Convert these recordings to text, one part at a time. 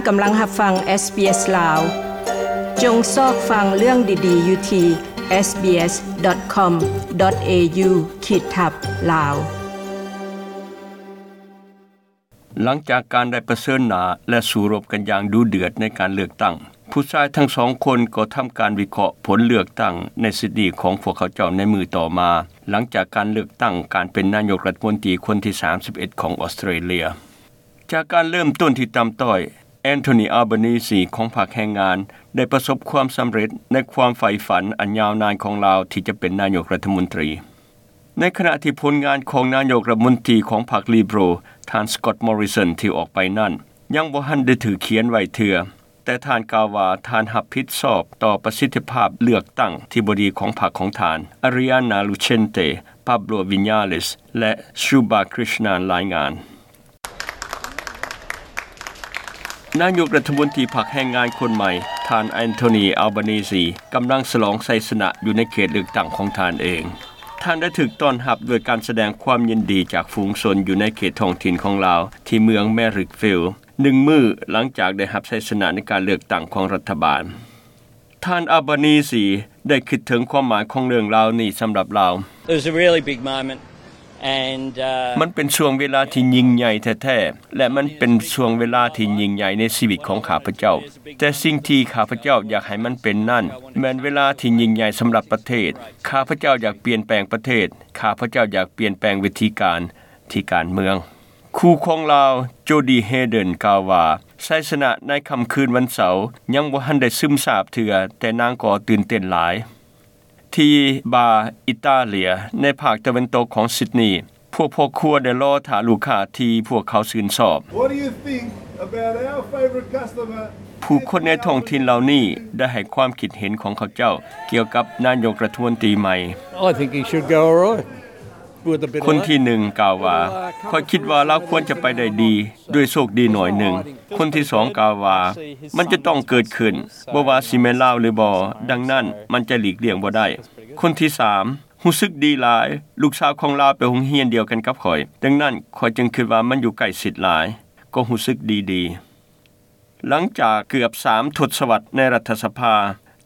ກຳລັງຮັບຟັງ SBS ລາວ. ຈົ່ງຊອກຟັງເລື່ອງດີໆຢູ່ທີ່ SBS.com.au ຂີດທັບ ລາວ. ຫຼັງຈາກການໄດ້ປະເຊີນໜ້າ ແລະ ສູ້ລົບກັນຢ່າງດຸເດືອດໃນການເລືອກຕັ້ງ, ຜູ້ຊາຍທັງສອງຄົນກໍທຳການວິເຄາະຜົນເລືອກຕັ້ງໃນຊິດນີຂອງພວກເຂົາເຈົ້າໃນມື້ຕໍ່ມາ, ຫຼັງຈາກການເລືອກຕັ້ງການເປັນນາຍົກລັດຖະມົນຕີຄົນທີສາມສິບເອັດຂອງອອສເຕຣເລຍ. ຈາກການເລີ່ມຕົ້ນທີ່ຕ່ຳຕ້ອຍ, ແອນໂທນີ ອາລບານີຊີຂອງພັກແຮງງານ ໄດ້ປະສົບຄວາມສຳເລັດໃນຄວາມໃຝ່ຝັນອັນຍາວນານຂອງລາວທີ່ຈະເປັນນາຍົກລັດຖະມົນຕີ. ໃນຂະນະທີ່ຜົນງານຂອງນາຍົກລັດຖະມົນຕີຂອງພັກລີເບີຣັລ ທ່ານ ສະກອດ ມໍຣິສັນ ທີ່ອອກໄປນັ້ນ ຍັງບໍ່ທັນໄດ້ຖືກຂຽນໄວ້ເທື່ອ, ແຕ່ທ່ານກ່າວວ່າທ່ານຮັບຜິດຊອບຕໍ່ປະສິດທິພາບເລືອກຕັ້ງທີ່ບໍ່ດີຂອງພັກຂອງທ່ານ ອາຣິອານາ ລູເຊນເຕ, ປາບໂລ ວິນຍາເລສ ແລະ ຊູບາ ຄຣິສນານ ລາຍງານ. ນາຍົກລັດຖະມົນຕີພັກແຮງງານຄົນໃໝ່ ທ່ານ ແອນໂທນີ ອາລບານີຊີ ກຳລັງສະຫຼອງໄຊຊະນະຢູ່ໃນເຂດເລືອກຕັ້ງຂອງທ່ານເອງ. ທ່ານໄດ້ຖືກຕ້ອນຮັບດ້ວຍການສະແດງຄວາມຍິນດີຈາກຝູງຊົນຢູ່ໃນເຂດທ້ອງຖິ່ນຂອງລາວ ທີ່ເມືອງ Marrickville ໜຶ່ງມື້ຫຼັງຈາກໄດ້ຮັບໄຊຊະນະໃນການເລືອກຕັ້ງຂອງລັດຖະບານ. ທ່ານ ອາລບານີຊີ ໄດ້ຄິດເຖິງຄວາມໝາຍຂອງເລື່ອງລາວນີ້ສຳລັບລາວ. It was a really big moment and, uh, ມັນເປັນຊ່ວງເວລາທີ່ຍິ່ງໃຫຍ່ແທ້ໆ ແລະ ມັນເປັນຊ່ວງເວລາທີ່ຍິ່ງໃຫຍ່ໃນຊີວິດຂອງຂ້າພະເຈົ້າ. ແຕ່ສິ່ງທີ່ຂ້າພະເຈົ້າຢາກໃຫ້ມັນເປັນນັ້ນ ແມ່ນເວລາທີ່ຍິ່ງໃຫຍ່ສຳລັບປະເທດ. ຂ້າພະເຈົ້າຢາກປ່ຽນແປງປະເທດ. ຂ້າພະເຈົ້າຢາກປ່ຽນແປງວິທີການທີ່ການເມືອງ. ຄູ່ຂອງລາວ ໂຈດີ ເຮເດີນ ກ່າວວ່າ ໄຊຊະນະໃນຄ່ຳຄືນວັນເສົາຍັງບໍ່ທັນໄດ້ຊຶມຊາບເທື່ອ, ແຕ່ນາງກໍຕື່ນເຕັ້ນຫຼາຍ. ທີ່ບາ ອິຕາເລຍ ໃນພາກຕາເວັນຕົກຂອງຊິດນີ, ພວກພໍ່ຄົວໄດ້ລໍຖ້າລູກຄ້າທີ່ພວກເຂົາຊື່ນຊອບ. What do you think about our favourite customer? ຜູ້ຄົນໃນທ້ອງຖິ່ນເຫຼົ່ານີ້ໄດ້ໃຫ້ຄວາມຄິດເຫັນຂອງເຂົາເຈົ້າກ່ຽວກັບນາຍົກລັດຖະມົນຕີໃໝ່. I think he should go all right. ຄົນທີໜຶ່ງກ່າວວ່າ, ຂ້ອຍຄິດວ່າລາວຄວນຈະໄປໄດ້ດີ ດ້ວຍໂຊກດີໜ້ອຍໜຶ່ງ. ຄົນທີສອງກ່າວວ່າ, ມັນຈະຕ້ອງເກີດຂຶ້ນ, ບໍ່ວ່າຊິແມ່ນລາວຫຼືບໍ່, ດັ່ງນັ້ນມັນຈະຫຼີກລ່ຽງບໍ່ໄດ້. ຄົນທີສາມ, ຮູ້ສຶກດີຫຼາຍ, ລູກສາວຂອງລາວໄປໂຮງຮຽນດຽວກັນກັບຂ້ອຍ, ດັ່ງນັ້ນຂ້ອຍຈຶ່ງຄິດວ່າມັນຢູ່ໃກ້ຊິດຫຼາຍ, ກໍຮູ້ສຶກດີໆ. ຫຼັງຈາກເກືອບສາມທົດສະວັດໃນລັດຖະສະພາ,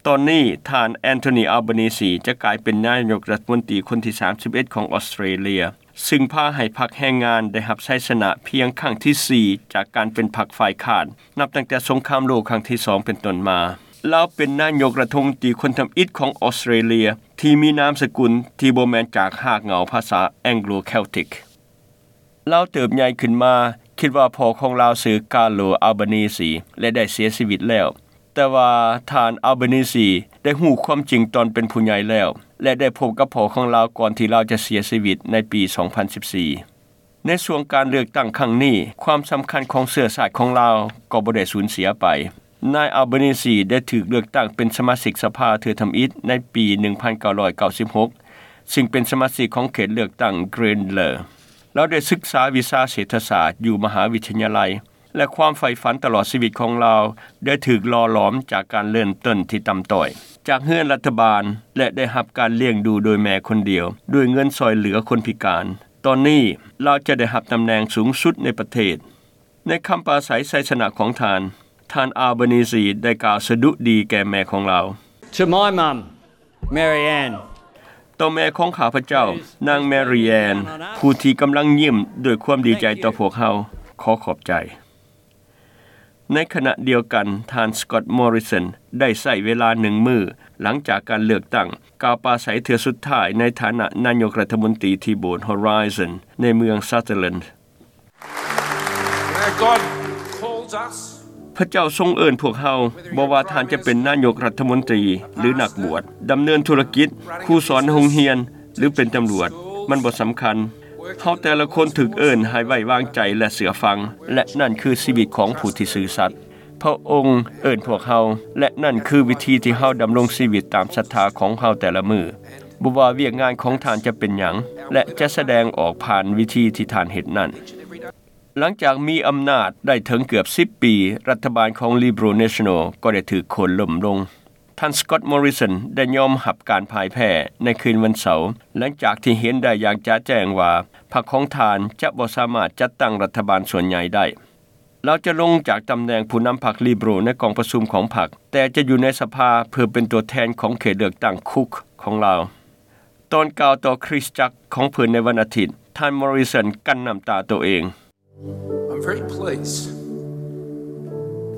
ຕອນນີ້ທ່ານ ແອນໂທນີ ອາລບານີຊີ ຈະກາຍເປັນນາຍົກລັດຖະມົນຕີຄົນທີສາມສິບເອັດຂອງອອສເຕຣເລຍ, ຊຶ່ງພາໃຫ້ພັກແຮງງານໄດ້ຮັບໄຊຊະນະພຽງຄັ້ງທີສີ່ຈາກການເປັນພັກຝ່າຍຄ້ານ ນັບຕັ້ງແຕ່ສົງຄາມໂລກຄັ້ງທີສອງເປັນຕົ້ນມາ. ລາວເປັນນາຍົກລັດຖະມົນຕີຄົນທຳອິດຂອງອອສເຕຣເລຍ ທີ່ມີນາມສະກຸນທີ່ບໍ່ແມ່ນຈາກຮາກເຫງົ້າພາສາແອງໂກລແຄວຕິກ. ລາວເຕີບໃຫຍ່ຂຶ້ນມາ, ຄິດວ່າພໍ່ຂອງລາວຊື່ ກາໂລ ອາລບານີຊີ ແລະ ໄດ້ເສຍຊີວິດແລ້ວ. ແຕ່ວ່າທ່ານ ອາລບານີຊີ ໄດ້ຮູ້ຄວາມຈິງຕອນເປັນຜູ້ໃຫຍ່ແລ້ວ ແລະ ໄດ້ພົບກັບພໍ່ຂອງລາວກ່ອນທີ່ລາວຈະເສຍຊີວິດໃນປີສອງພັນສິບສີ່. ໃນຊ່ວງການເລືອກຕັ້ງຄັ້ງນີ້, ຄວາມສຳຄັນຂອງເຊື້ອຊາດຂອງລາວກໍບໍ່ໄດ້ສູນເສຍໄປ. ນາຍ ອາລບານີຊີ ໄດ້ຖືກເລືອກຕັ້ງເປັນສະມາຊິກສະພາເທື່ອທຳອິດໃນປີໜຶ່ງພັນເກົ້າຮ້ອຍເກົ້າສິບຫົກ ຊຶ່ງເປັນສະມາຊິກຂອງເຂດເລືອກຕັ້ງ Grenlaw. ລາວໄດ້ສຶກສາວິຊາເສດຖະສາດຢູ່ມະຫາວິທະຍາໄລ ແລະ ຄວາມໃຝ່ຝັນຕະຫຼອດຊີວິດຂອງລາວໄດ້ຖືກຫຼໍ່ຫຼອມຈາກການເລີ່ມຕົ້ນທີ່ຕ່ຳຕ້ອຍ, ຈາກເຮືອນລັດຖະບານ ແລະ ໄດ້ຮັບການລ້ຽງດູໂດຍແມ່ຄົນດຽວ ດ້ວຍເງິນຊ່ອຍເຫຼືອຄົນພິການ. ຕອນນີ້ລາວຈະໄດ້ຮັບຕຳແໜ່ງສູງສຸດໃນປະເທດ. ໃນຄຳປາໄສໄຊຊະນະຂອງທ່ານ, ທ່ານ ອາລບານີຊີ ໄດ້ກ່າວສະດຸດີແກ່ແມ່ຂອງລາວ. To my mum, Mary Ann. ຕໍ່ແມ່ຂອງຂ້າພະເຈົ້າ, ນາງ Mary Ann, ຜູ້ທີ່ກຳລັງຍິ້ມດ້ວຍຄວາມດີໃຈຕໍ່ພວກເຮົາ, ຂໍຂອບໃຈ. ໃນຂະນະດຽວກັນ, ທ່ານ Scott Morrison ໄດ້ໃຊ້ເວລາໜຶ່ງມື້ຫຼັງຈາກການເລືອກຕັ້ງ, ກ່າວປາໄສເທື່ອສຸດທ້າຍໃນຖານະນາຍົກລັດຖະມົນຕີທີ່ໂບດ Horizon ໃນເມືອງ Sutherland. Where God calls us, ພະເຈົ້າຊົງເອີ້ນພວກເຮົາ, ບໍ່ວ່າທ່ານຈະເປັນນາຍົກລັດຖະມົນຕີ ຫຼື ນັກບວດ, ດຳເນີນທຸລະກິດ, ຄູສອນໃນໂຮງຮຽນ ຫຼື ເປັນຕຳຫຼວດ, ມັນບໍ່ສຳຄັນ. ເຮົາແຕ່ລະຄົນຖືກເອີ້ນໃຫ້ໄວ້ວາງໃຈ ແລະ ເຊື່ອຟັງ, ແລະ ນັ້ນຄືຊີວິດຂອງຜູ້ທີ່ຊື່ສັດ. ພະອົງເອີ້ນພວກເຮົາ, ແລະ ນັ້ນຄືວິທີທີ່ເຮົາດຳລົງຊີວິດຕາມສັດທາຂອງເຮົາແຕ່ລະມື້, ບໍ່ວ່າວຽກງານຂອງທ່ານຈະເປັນຫຍັງ, ແລະ ຈະສະແດງອອກຜ່ານວິທີທີ່ທ່ານເຮັດນັ້ນ. ຫຼັງຈາກມີອຳນາດໄດ້ເຖິງເກືອບສິບປີ, ລັດຖະບານຂອງ Liberal National ກໍໄດ້ຖືກໂຄ່ນລົ້ມລົງ. ທ່ານ Scott Morrison ໄດ້ຍອມຮັບການພ່າຍແພ້ໃນຄືນວັນເສົາ, ຫຼັງຈາກທີ່ເຫັນໄດ້ຢ່າງຈະແຈ້ງວ່າ ພັກຂອງທ່ານຈະບໍ່ສາມາດຈັດຕັ້ງລັດຖະບານສ່ວນໃຫຍ່ໄດ້. ລາວຈະລົງຈາກຕຳແໜ່ງຜູ້ນຳພັກ Liberal ໃນກອງປະຊຸມຂອງພັກ, ແຕ່ຈະຢູ່ໃນສະພາເພື່ອເປັນຕົວແທນຂອງເຂດເລືອກຕັ້ງ Cook ຂອງລາວ. ຕອນກ່າວຕໍ່ຄຣິສຕະຈັກຂອງເພິ່ນໃນວັນອາທິດ, ທ່ານ Morrison ກັ້ນນ້ຳຕາໂຕເອງ. I'm very pleased.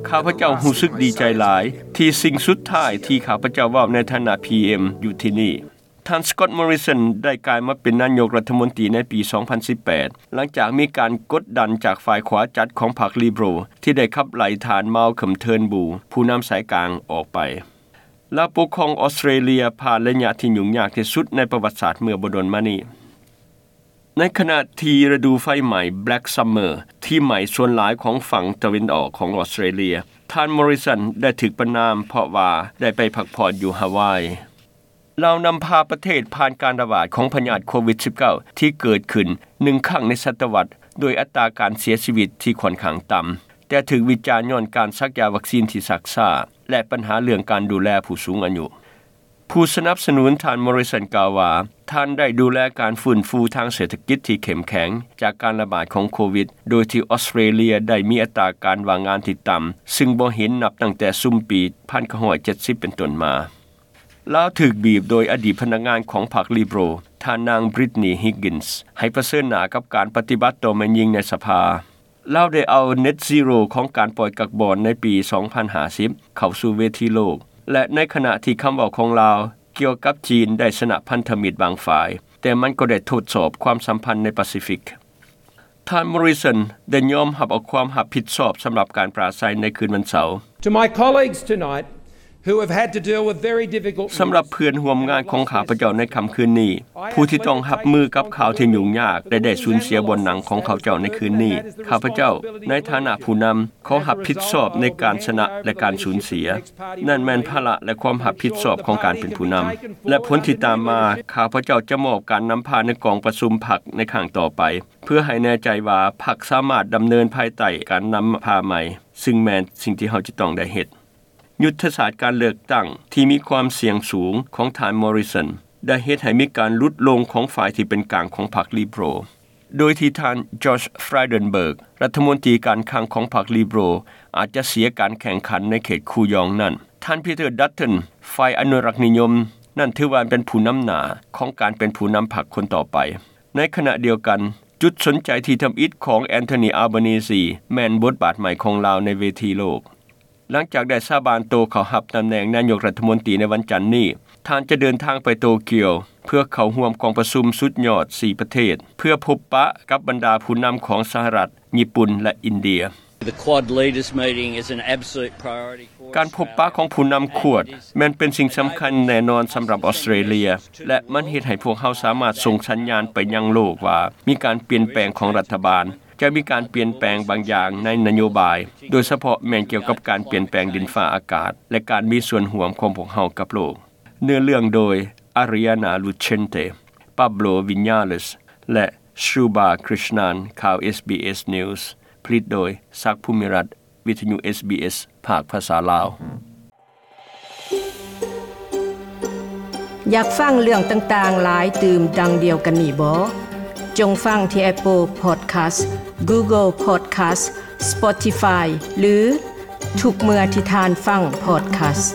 ຂ້າພະເຈົ້າຮູ້ສຶກດີໃຈຫຼາຍ ທີ່ສິ່ງສຸດທ້າຍທີ່ຂ້າພະເຈົ້າເວົ້າໃນຖານະ PM ຢູ່ທີ່ນີ້. ທ່ານ Scott Morrison ໄດ້ກາຍມາເປັນນາຍົກລັດຖະມົນຕີໃນປີສອງພັນສິບແປດ ຫຼັງຈາກມີການກົດດັນຈາກຝ່າຍຂວາຈັດຂອງພັກ Liberal ທີ່ໄດ້ຂັບໄລ່ທ່ານ Malcolm Turnbull ຜູ້ນຳສາຍກາງອອກໄປ. ລາວປົກຄອງອອສເຕຣເລຍຜ່ານໄລຍະທີ່ຫຍຸ້ງຍາກທີ່ສຸດໃນປະຫວັດສາດເມື່ອບໍ່ດົນມານີ້. ໃນຂະນະທີ່ລະດູໄຟໄໝ້ Black Summer ທີ່ໄໝ້ສ່ວນຫຼາຍຂອງຝັ່ງຕາເວັນອອກຂອງອອສເຕຣເລຍ, ທ່ານ Morrison ໄດ້ຖືກປະນາມເພາະວ່າໄດ້ໄປພັກຜ່ອນຢູ່ຮາວາຍ. ລາວນຳພາປະເທດຜ່ານການລະບາດຂອງພະຍາດໂຄວິດສິບເກົ້າ ທີ່ເກີດຂຶ້ນໜຶ່ງຄັ້ງໃນສະຕະວັດ, ໂດຍອັດຕາການເສຍຊີວິດທີ່ຂ້ອນຂ້າງຕ່ຳ, ແຕ່ຖືກວິຈານຍ້ອນການສັກຢາວັກຊີນທີ່ຊັກຊ້າ ແລະ ບັນຫາເລື່ອງການດູແລຜູ້ສູງອາຍຸ. ຜູ້ສະໜັບສະໜູນທ່ານ Morrison ກ່າວວ່າ ທ່ານໄດ້ດູແລການຟື້ນຟູທາງເສດຖະກິດທີ່ເຂັ້ມແຂງຈາກການລະບາດຂອງໂຄວິດ, ໂດຍທີ່ອອສເຕຣເລຍໄດ້ມີອັດຕາການວ່າງງານທີ່ຕ່ຳ ຊຶ່ງບໍ່ເຫັນນັບຕັ້ງແຕ່ຊຸມປີພັນເກົ້າຮ້ອຍເຈັດສິບເປັນຕົ້ນມາ. ລາວຖືກບີບໂດຍອະດີດພະນັກງານຂອງພັກ Liberal ທ່ານນາງ Brittany Higgins ໃຫ້ປະເຊີນໜ້າກັບການປະຕິບັດຕໍ່ແມ່ຍິງໃນສະພາ. ລາວໄດ້ເອົາ Net Zero ຂອງການປ່ອຍກັກບອນໃນປີສອງພັນຫ້າສິບເຂົ້າສູ່ເວທີໂລກ ແລະ ໃນຂະນະທີ່ຄຳເວົ້າຂອງລາວກ່ຽວກັບຈີນໄດ້ຊະນະພັນທະມິດບາງຝ່າຍ, ແຕ່ມັນກໍໄດ້ທົດສອບຄວາມສຳພັນໃນປາຊີຟິກ. ທ່ານ Morrison ໄດ້ຍອມຮັບເອົາຄວາມຮັບຜິດຊອບສຳລັບການປາໄສໃນຄືນວັນເສົາ. To my colleagues tonight, who have had to deal with very difficult news. ສຳລັບເພື່ອນຮ່ວມງານຂອງຂ້າພະເຈົ້າໃນຄ່ຳຄືນນີ້, ຜູ້ທີ່ຕ້ອງຮັບມືກັບຂ່າວທີ່ຫຍຸ້ງຍາກ ແລະ ໄດ້ສູນເສຍບ່ອນນັ່ງຂອງເຂົາເຈົ້າໃນຄືນນີ້, ຂ້າພະເຈົ້າໃນຖານະຜູ້ນຳ ຂໍຮັບຜິດຊອບໃນການຊະນະ ແລະ ການສູນເສຍ. ນັ້ນແມ່ນພາລະ ແລະ ຄວາມຮັບຜິດຊອບຂອງການເປັນຜູ້ນຳ. ແລະ ຜົນທີ່ຕາມມາ, ຂ້າພະເຈົ້າຈະມອບການນຳພາໃນກອງປະຊຸມພັກໃນຄັ້ງຕໍ່ໄປ, ເພື່ອໃຫ້ແນ່ໃຈວ່າພັກສາມາດດຳເນີນພາຍໃຕ້ການນຳພາໃໝ່, ຊຶ່ງແມ່ນສິ່ງທີ່ເຮົາຈະຕ້ອງໄດ້ເຮັດ. ຍຸດທະສາດການເລືອກຕັ້ງທີ່ມີຄວາມສ່ຽງສູງຂອງທ່ານ Morrison ໄດ້ເຮັດໃຫ້ມີການຫຼຸດລົງຂອງຝ່າຍທີ່ເປັນກາງຂອງພັກ Liberal, ໂດຍທີ່ທ່ານ Josh Frydenberg ລັດຖະມົນຕີການຄັງຂອງພັກ Liberal ອາດຈະເສຍການແຂ່ງຂັນໃນເຂດຄູຢອງນັ້ນ. ທ່ານ Peter Dutton ຝ່າຍອະນຸລັກນິຍົມ ນັ້ນຖືວ່າເປັນຜູ້ນຳໜ້າຂອງການເປັນຜູ້ນຳພັກຄົນຕໍ່ໄປ. ໃນຂະນະດຽວກັນ, ຈຸດສົນໃຈທີ່ທຳອິດຂອງ Anthony Albanese ແມ່ນບົດບາດໃໝ່ຂອງລາວໃນເວທີໂລກ. ຫຼັງຈາກໄດ້ສາບານໂຕເຂົ້າຮັບຕຳແໜ່ງນາຍົກລັດຖະມົນຕີໃນວັນຈັນນີ້, ທ່ານຈະເດີນທາງໄປໂຕກຽວ ເພື່ອເຂົ້າຮ່ວມກອງປະຊຸມສຸດຍອດສີ່ປະເທດ ເພື່ອພົບປະກັບບັນດາຜູ້ນຳຂອງສະຫະລັດ, ຍີ່ປຸ່ນ ແລະ ອິນເດຍ. The Quad Leaders Meeting is an absolute priority for us. ການພົບປະຂອງຜູ້ນຳ Quad ແມ່ນເປັນສິ່ງສຳຄັນແນ່ນອນສຳລັບອອສເຕຣເລຍ ແລະ ມັນເຮັດໃຫ້ພວກເຮົາສາມາດສົ່ງສັນຍານໄປຍັງໂລກວ່າມີການປ່ຽນແປງຂອງລັດຖະບານ, ຈະມີການປ່ຽນແປງບາງຢ່າງໃນນະໂຍບາຍ, ໂດຍສະເພາະແມ່ນກ່ຽວກັບການປ່ຽນແປງດິນຟ້າອາກາດ ແລະ ການມີສ່ວນຮ່ວມຂອງພວກເຮົາກັບໂລກ. ເນື້ອເລື່ອງໂດຍ Ariana Lucente, Pablo Viñales ແລະ Shruba Krishnan. ຂ່າວ SBS News ຜະລິດໂດຍ ສັກ ພູມິລັດ, ວິທະຍຸ SBS ພາກພາສາລາວ. ຢາກຟັງເລື່ອງຕ່າງໆຫຼາຍຕື່ມດັ່ງດຽວກັນນີ້ບໍ່? ຈົ່ງຟັງທີ່ Apple Podcast, Google Podcast, Spotify ຫຼື ທຸກເມື່ອທີ່ທ່ານຟັງ podcast.